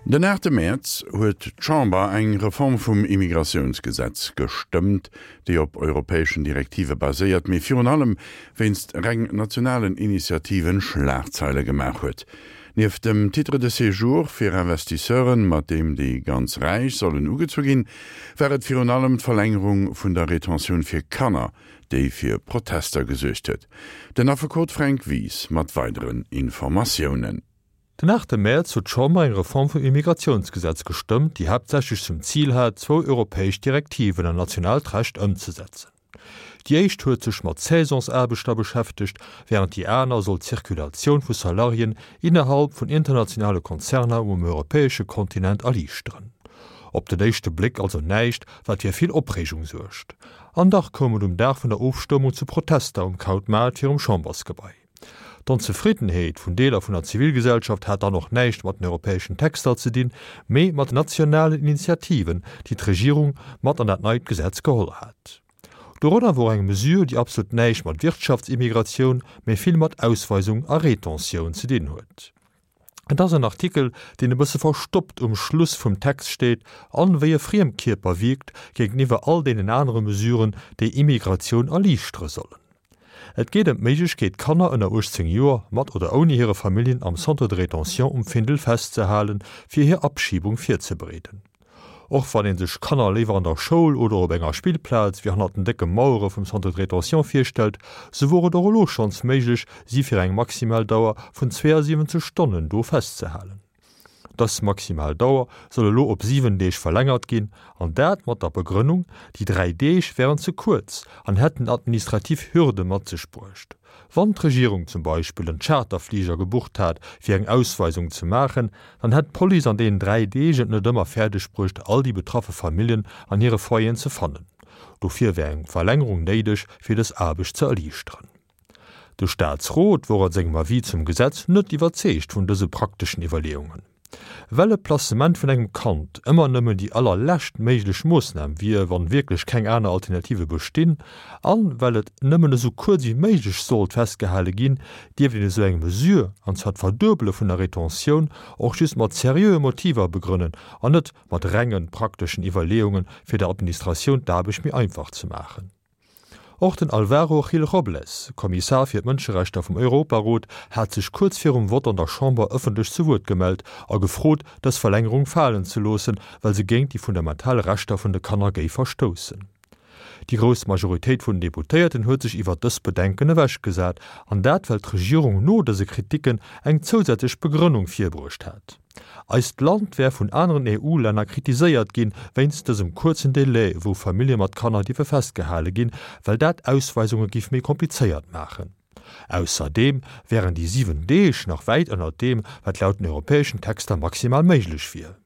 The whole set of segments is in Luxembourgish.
Den aachte Mäerz huet d'Chamber eng Reform vum Immigratiounsgesetz gestëmmt, déi op europäeschen Direktive baséiert, mee virun allem wéinst reng nationalen Initiativen Schlagzeile gemaach huet. Nieft dem Titre de séjour fir Investisseuren, mat deem déi ganz Räich sollen ugezu ginn, war et virun allem d'Verlängerung vun der Retentioun fir Kanner, déi fir Protester gesuergt huet. Den Affekot Fränk Wies mat weideren Informatiounen. Den aachte Mäerz huet d'Chamber eng Reform vum Immigratiounsgesetz gestëmmt, déi haaptsächlech zum Zil hat, zwou europäesch Direktiven an nationaalt Recht ëmzesetzen. Déi éischt huet sech mat Saisonsaarbechter beschäftegt, wärend déi aner soll d'Zirkulatioun vu Salariéen innerhalb vun internationale Konzerner um europäesche Kontinent erliichteren. Op den éischte Bléck also näischt, wat fir vill Opreegung suergt. An dach koum et um Dag vun der Ofstëmmung zu Protester um Krautmaart virum Chambersgebai. D'Onzefriddenheet vun Deeler vun der Zivilgesellschaft hat dann och näischt mat den europäeschen Texter ze dinn, mee mat den nationalen Initiativen, déi d'Regierung mat an dat neit Gesetz geholl hat. Dorënner wor eng Mesure, déi absolut näischt mat Wirtschaftsimmigratioun, mee vill mat Ausweisung a Retentioun ze dinn huet. Et ass en Artikel, deen e bësse verstoppt um Schluss vum Text steet an wéi e Friemkierper wierkt géinteniwwer all deenen anere Mesuren, déi Immigratioun erliichtere sollen. Et geet ëm d'Méiglechkeet, Kanner ënner 18 Joer, mat oder ouni hire Familljen, am Centre de rétention um Findel festzehalen, fir hir Abschiebung virzebereeden. Och wann ee sech Kanner léiwer an der Schoul oder op enger Spillplaz wéi hannert den décke Mauere vum Centre de rétention virstellt, sou wor et och elo schonns méiglech, si fir eng maximal Dauer vun 72 Stonnen do festzehalen. Dës maximal Dauer soll elo op 7 Deeg verlängert ginn, an dat mat der Begrënnung, déi 3 Deeg wären ze kuerz an hätten administrativ Hürde mat sech bruecht. Wann d'Regierung zum Beispill en Charterfliger gebucht hat, fir eng Ausweisung ze maachen, dann hätt d'Police an deenen 3 Deeg et net ëmmer fäerdeg bruecht, all déi betraffe Familljen an hire Foyeren ze fannen. Dofir wär eng Verlängerung néideg, fir dës Aarbecht ze erliichteren. De Staatsrot wor a sengem Avis zum Gesetz net iwwerzeegt vun dëse prakteschen Iwwerleeungen. Well e Placement vun engem Kand ëmmer nëmmen déi allerlescht méiglech Moossnam wier, wann wierklech keng aner Alternative bestinn, an well et nëmmen esou kuerz ewéi méiglech sollt festgehale ginn, dierft een esou eng Mesure, an zwar d'Verduebele vun der Retentioun, och just mat seriöe Motiver begrënnen an net mat renge prakteschen Iwwerleeungen, fir der Administratioun d'Aarbecht méi einfach ze maachen. Och den Alvaro Gil-Robles, Kommissar fir d'Mënscherechter vum Europarot, hat sech kuerz virum Vott an der Chamber ëffentlech zu Wuert gemellt a gefrot, dës Verlängerung falen ze loossen, well se géint déi fundamental Rechter vun de Kanner géif verstoussen. Déi grouss Majoritéit vun den Deputéierten huet sech iwwert dës Bedenken ewechgesat, an dat well d'Regierung no dëse Kriticken eng zousätzlech Begrënnung virbruecht hat. Eist Land wär vun aneren EU-Länner kritiséiert ginn, wéinst dësem kuerzen Delai, wou Famillje mat Kanner dierfe festgehale ginn, well dat Ausweisunge giff méi komplizéiert maachen. Ausserdeem wären déi 7 Deeg nach wäit ënnert deem, wat laut den europäeschen Texter maximal méiglech wier.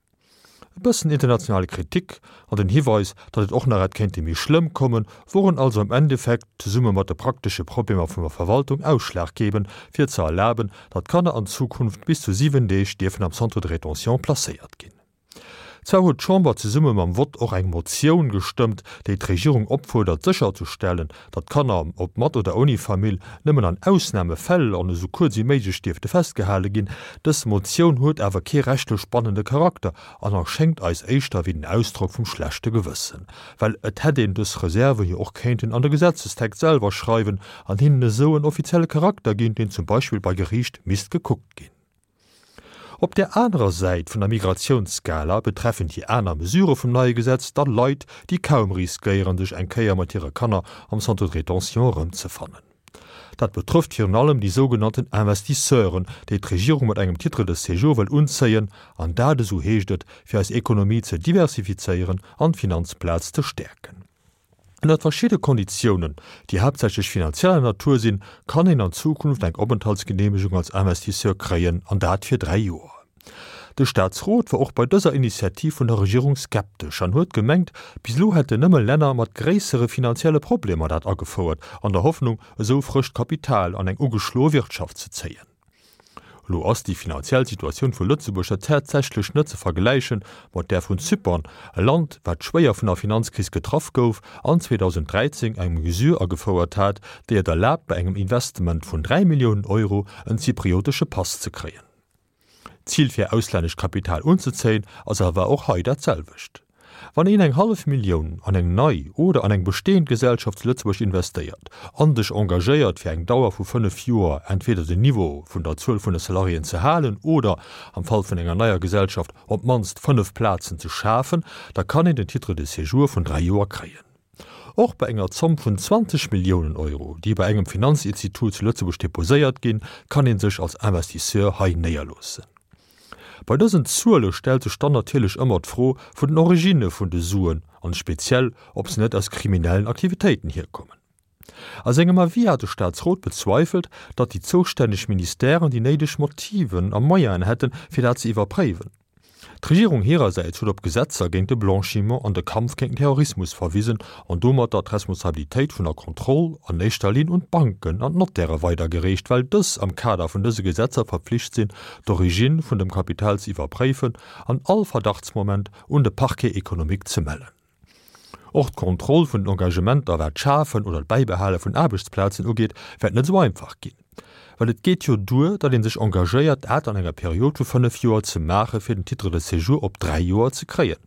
E bëssen internationale Kritik an den Hiweis, datt et och nach hätt kéinte méi schlëmm kommen, woren also am Endeffekt, zesumme mat de praktesche Problemer vun der Verwaltung, ausschlaggebend, fir ze erlaben, datt Kanner an Zukunft bis zu 7 Deeg dierfen am Centre de rétention placéiert ginn. Zwar huet d'Chamber zesumme mam Vott och eng Motioun gestëmmt, déi d'Regierung opfuerdert sécherzestellen, datt Kanner, ob mat oder ouni Famill, nëmmen an Ausnamefäll an esou kuerz wéi méiglech dierfte festgehale ginn. Dës Motioun huet awer kee rechtlech bannende Charakter an erschéngt eis éischter wéi den Ausdrock vum schlechte Gewëssen, well et hätt een dës Reserve jo och kéinten an de Gesetzestext selwer schreiwen an hinnen esou en offizielle Charakter ginn, deen zum Beispill bei Geriicht misst gekuckt ginn. Op där anerer Säit vun der Migratiounsskala betreffen déi aner Mesurë vum neie Gesetz da Leit, déi kaum riskéieren, sech eng Kéier mat hire Kanner am Centre de rétention erëmzefannen. Dat betrëfft virun allem déi sougenannten Investisseuren, déi d'Regierung mat engem Titre de séjour wëll unzéien, an dat, esou heescht et, fir eis Ekonomie ze diversifizéieren an d'Finanzplaz ze stäerken. Ënnert verschidde Konditiounen, déi haaptsächlech finanzieller Natur sinn, kann een an Zukunft eng Openthaltsgeneemegung als Investisseur kréien, an dat fir 3 Joer. De Staatsrot war och bei dëser Initiativ vun der Regierung skeptesch an huet gemengt, bis elo hätten nëmme Länner mat gréissere finanzielle Problemer dat agefouert, an der Hoffnung, esou frëscht Kapital an eng ugeschloe Wirtschaft ze zéien. Elo ass déi finanziell Situatioun vu Lëtzebuerg jo tatsächlech net ze vergläiche mat där vun Zypern, e Land, wat schwéier vun der Finanzkris getraff gouf an 2013 eng Mesure agefouert hat, déi et erlaabt, bei engem Investement vun 3 Milliounen Euro en zypriotesche Pass ze kréien. D'Zil fir auslännescht Kapital unzezéien ass awer och hei dat selwecht. Wann een eng hallef Millioun an eng nei oder an eng bestehend Gesellschaft zu Lëtzebuerg investéiert an sech engagéiert fir eng Dauer vu 5 Joer entweder den Niveau vun der Zuel vun de Salariéen ze halen oder am Fall vun enger neier Gesellschaft op d'mannst 5 Plazen ze schafen, da kann een den Titre de séjour vun 3 Joer kréien. Och bei enger Zomm vun 20 Milliounen Euro, déi bei engem Finanzinstitut zu Lëtzebuerg deposéiert ginn, kann ee sech als Investisseur hei néierloossen. Bei dësen Zuele stellt sech dann natierlech ëmmer d'Fro vun den Originne vun de Suen an speziell, ob se net aus kriminellen Aktivitéiten hierkommen. A sengem Avis hat de Staatsrot bezweifelt, datt déi zoustänneg Ministèren déi néideg Motiven a Moyenen hätten, fir dat ze iwwerpréiwen. D'Regierung hirersäits huet op Gesetzer géint de Blanchiment an de Kampf géint den Terrorismus verwisen an domatter d'Responsabilitéit vun der Kontroll an éischter Linn un d'Banken an d'Nottäre weidergereecht, well dës am Kader vun dëse Gesetzer verpflicht sinn, d'Origine vun dem Kapital ze iwwerpréifen an all Verdachtsmoment un de Parquet économique ze mellen. Och d'Kontroll vun den Engagementer, wat d'Schafen oder d'Bäibehale vun Aarbechtsplazen ugeet, wäert net esou einfach ginn. Well et geet jo duer, datt ee sech engagéiert, dat an enger Period vu 5 Joer ze maachen, fir den Titre de séjour op 3 Joer ze kréien.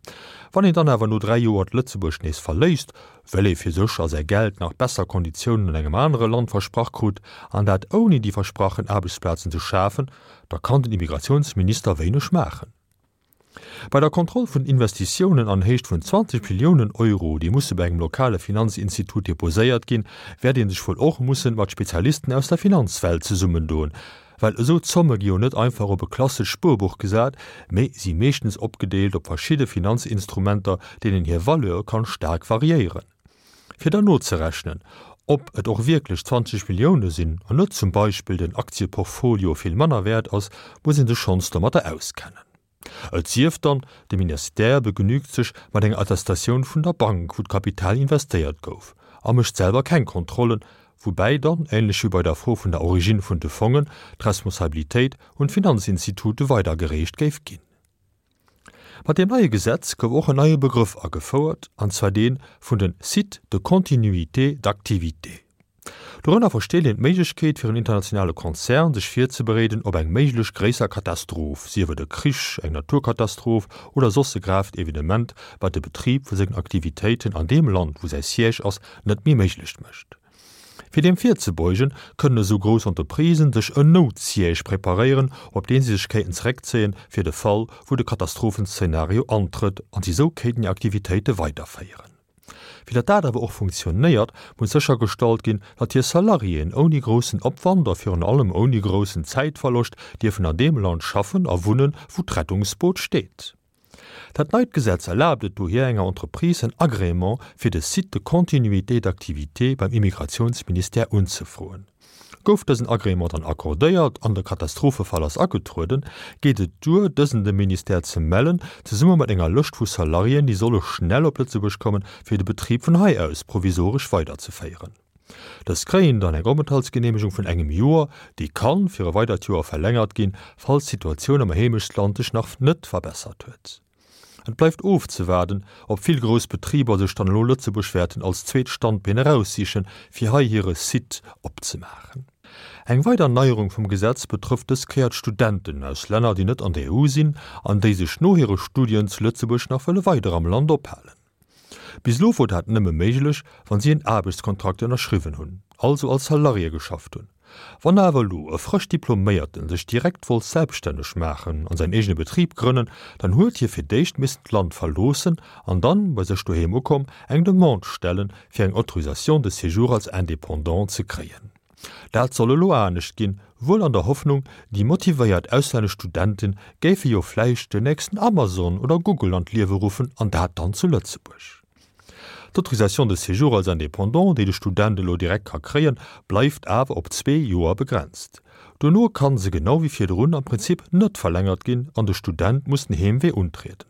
Wann een dann awer no 3 Joer d'Lëtzebuerg nees verléisst, well ee fir sech a säi Geld nach besser Konditiounen an engem anere Land versprach krut, an dat ouni déi versprachen Aarbechtsplazen ze schafen, da kann den Immigratiounsminister wéineg maachen. Bei der Kontroll vun Investitiounen an Héicht vun 20 Milliounen Euro, déi musse bei engem lokale Finanzinstitut deposéiert ginn, wäert ee sech wuel och mussen mat Spezialisten aus der Finanzwelt zesummendoen, well esou Zomme gi jo net einfach op e klassescht Spuerbuch gesat, mee si meeschtens opgedeelt op verschidde Finanzinstrumenter, deenen hir Valeur kann staark variéieren. Fir dann nozerechnen, ob et och wierklech 20 Millioune sinn an net zum Beispill den Aktieportfolio vill manner wäert ass, muss ee sech schonns domatter auskennen. Et sief dann, de Ministère begnügt sech mat enger Attestatioun vun der Bank, wou d'Kapital investéiert gouf, a mécht selwer keng Kontrollen, woubäi dann, änlech wéi bei der Fro vun der Origine vun de Fongen, d'Responsabilitéit un d'Finanzinstitute weidergereecht géif ginn. Mat deem neie Gesetz gouf och en neie Begrëff agefouert, an zwar dee vun de Sites de continuité d'activité. Dorënner versteet een d'Méiglechkeet fir en internationale Konzern sech virzebereeden op eng méiglech gréisser Katastroph, sief et e Krich, eng Naturkatastroph oder soss e gravt Evenement, wat de Betrib vu sengen Aktivitéiten an deem Land, wou säi Siège ass, net méi méiglech mécht. Fir deem virzebeugen, kënnen esou grouss Entreprisen sech en Noutsiège preparéieren, op deen si sech kéinten zeréckzéien, fir de Fall, wou de Katastrophenszenario antrëtt, an si sou kéinten hir Aktivitéite weiderféieren. Fir datt dat awer och funktionéiert, muss séchergestallt ginn, datt hir Salariéen ouni groussen Opwand a virun allem ouni groussen Zäitverloscht dierfen an deem Land schaffen a wunnen, wou d'Rettungsboot steet. Dat neit Gesetz erlaabt et dohier enger Entreprise en Agrément fir de Site de continuité d'activité beim Immigrationsministère unzefroen. Gouf dësen Agrément dann accordéiert an de Katastrophefall ass agetrueden, geet et duer, dësen dem Ministère ze mellen, zesumme mat enger Lëscht vu Salariéen, déi solle schnell op Lëtzebuerg kommen, fir de Betrib vun hei aus provisoresch weiderzeféieren. Dës kréien dann eng Openthaltsgeneemegung vun engem Joer, déi kann fir e weidert Joer verlängert ginn, falls d'Situatioun am Heemechtsland sech nach net verbessert huet. Et bleift ofzewaarden, ob vill grouss Betriber sech dann elo Lëtzebuerg wäerten als zweet Standbeen eraussichen, fir hei hire Site opzemaachen. Eng weider Neierung vum Gesetz betrëfft dës Kéier d'Studenten aus Länner, déi net an der EU sinn an déi sech no hire Studien zu Lëtzebuerg nach wëlle weider am Land ophalen. Bis elo wor dat nëmme méiglech, wann si en Aarbechtskontrakt ënnerschriwwen hunn, also als Salarié geschafft hunn. Wann awer elo e frësch Diploméierten sech direkt wollt selbststänneg maachen an säin eegene Betrib grënnen, dann huet hie fir d'éischt missen d'Land verloossen an dann, bei sech doheem ukomm, eng Demande stellen, fir eng Autorisation de séjour als Indépendant ze kréien. Dat soll elo anescht ginn, wuel an der Hoffnung, déi motivéiert auslännesch Studente géife jo vläicht den nächsten Amazon oder Google an d'Liewe ruffen, an dat dann zu Lëtzebuerg. D'Autorisation de séjour als Indépendant, déi de Student elo direkt ka kréien, bleift awer op zwee Joer begrenzt. Dono kann se genau wéi virdrun am Prinzip net verlängert ginn an de Student muss den Heemwee untrieden.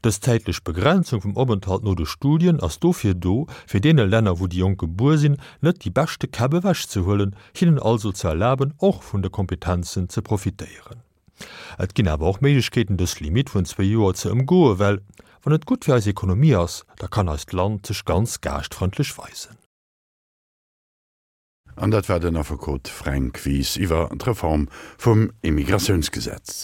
Dës zäitlech Begrenzung vum Openthalt no de Studien ass dofir do, fir deene Länner, wou déi Jonk gebuer sinn, net déi beschte Käpp ewechzehuelen, hinnen also ze erlaben, och vun de Kompetenzen ze profitéieren. Et ginn awer och Méiglechkeeten, dës Limitt vun zwéi Joer ze ëmgoen, well wann et gutt fir eis Ekonomie ass, da kann eist Land sech ganz gaaschtfrëndlech weisen. An dat war den Affekot Fränk Wies iwwer d'Reform vum Immigratiounsgesetz.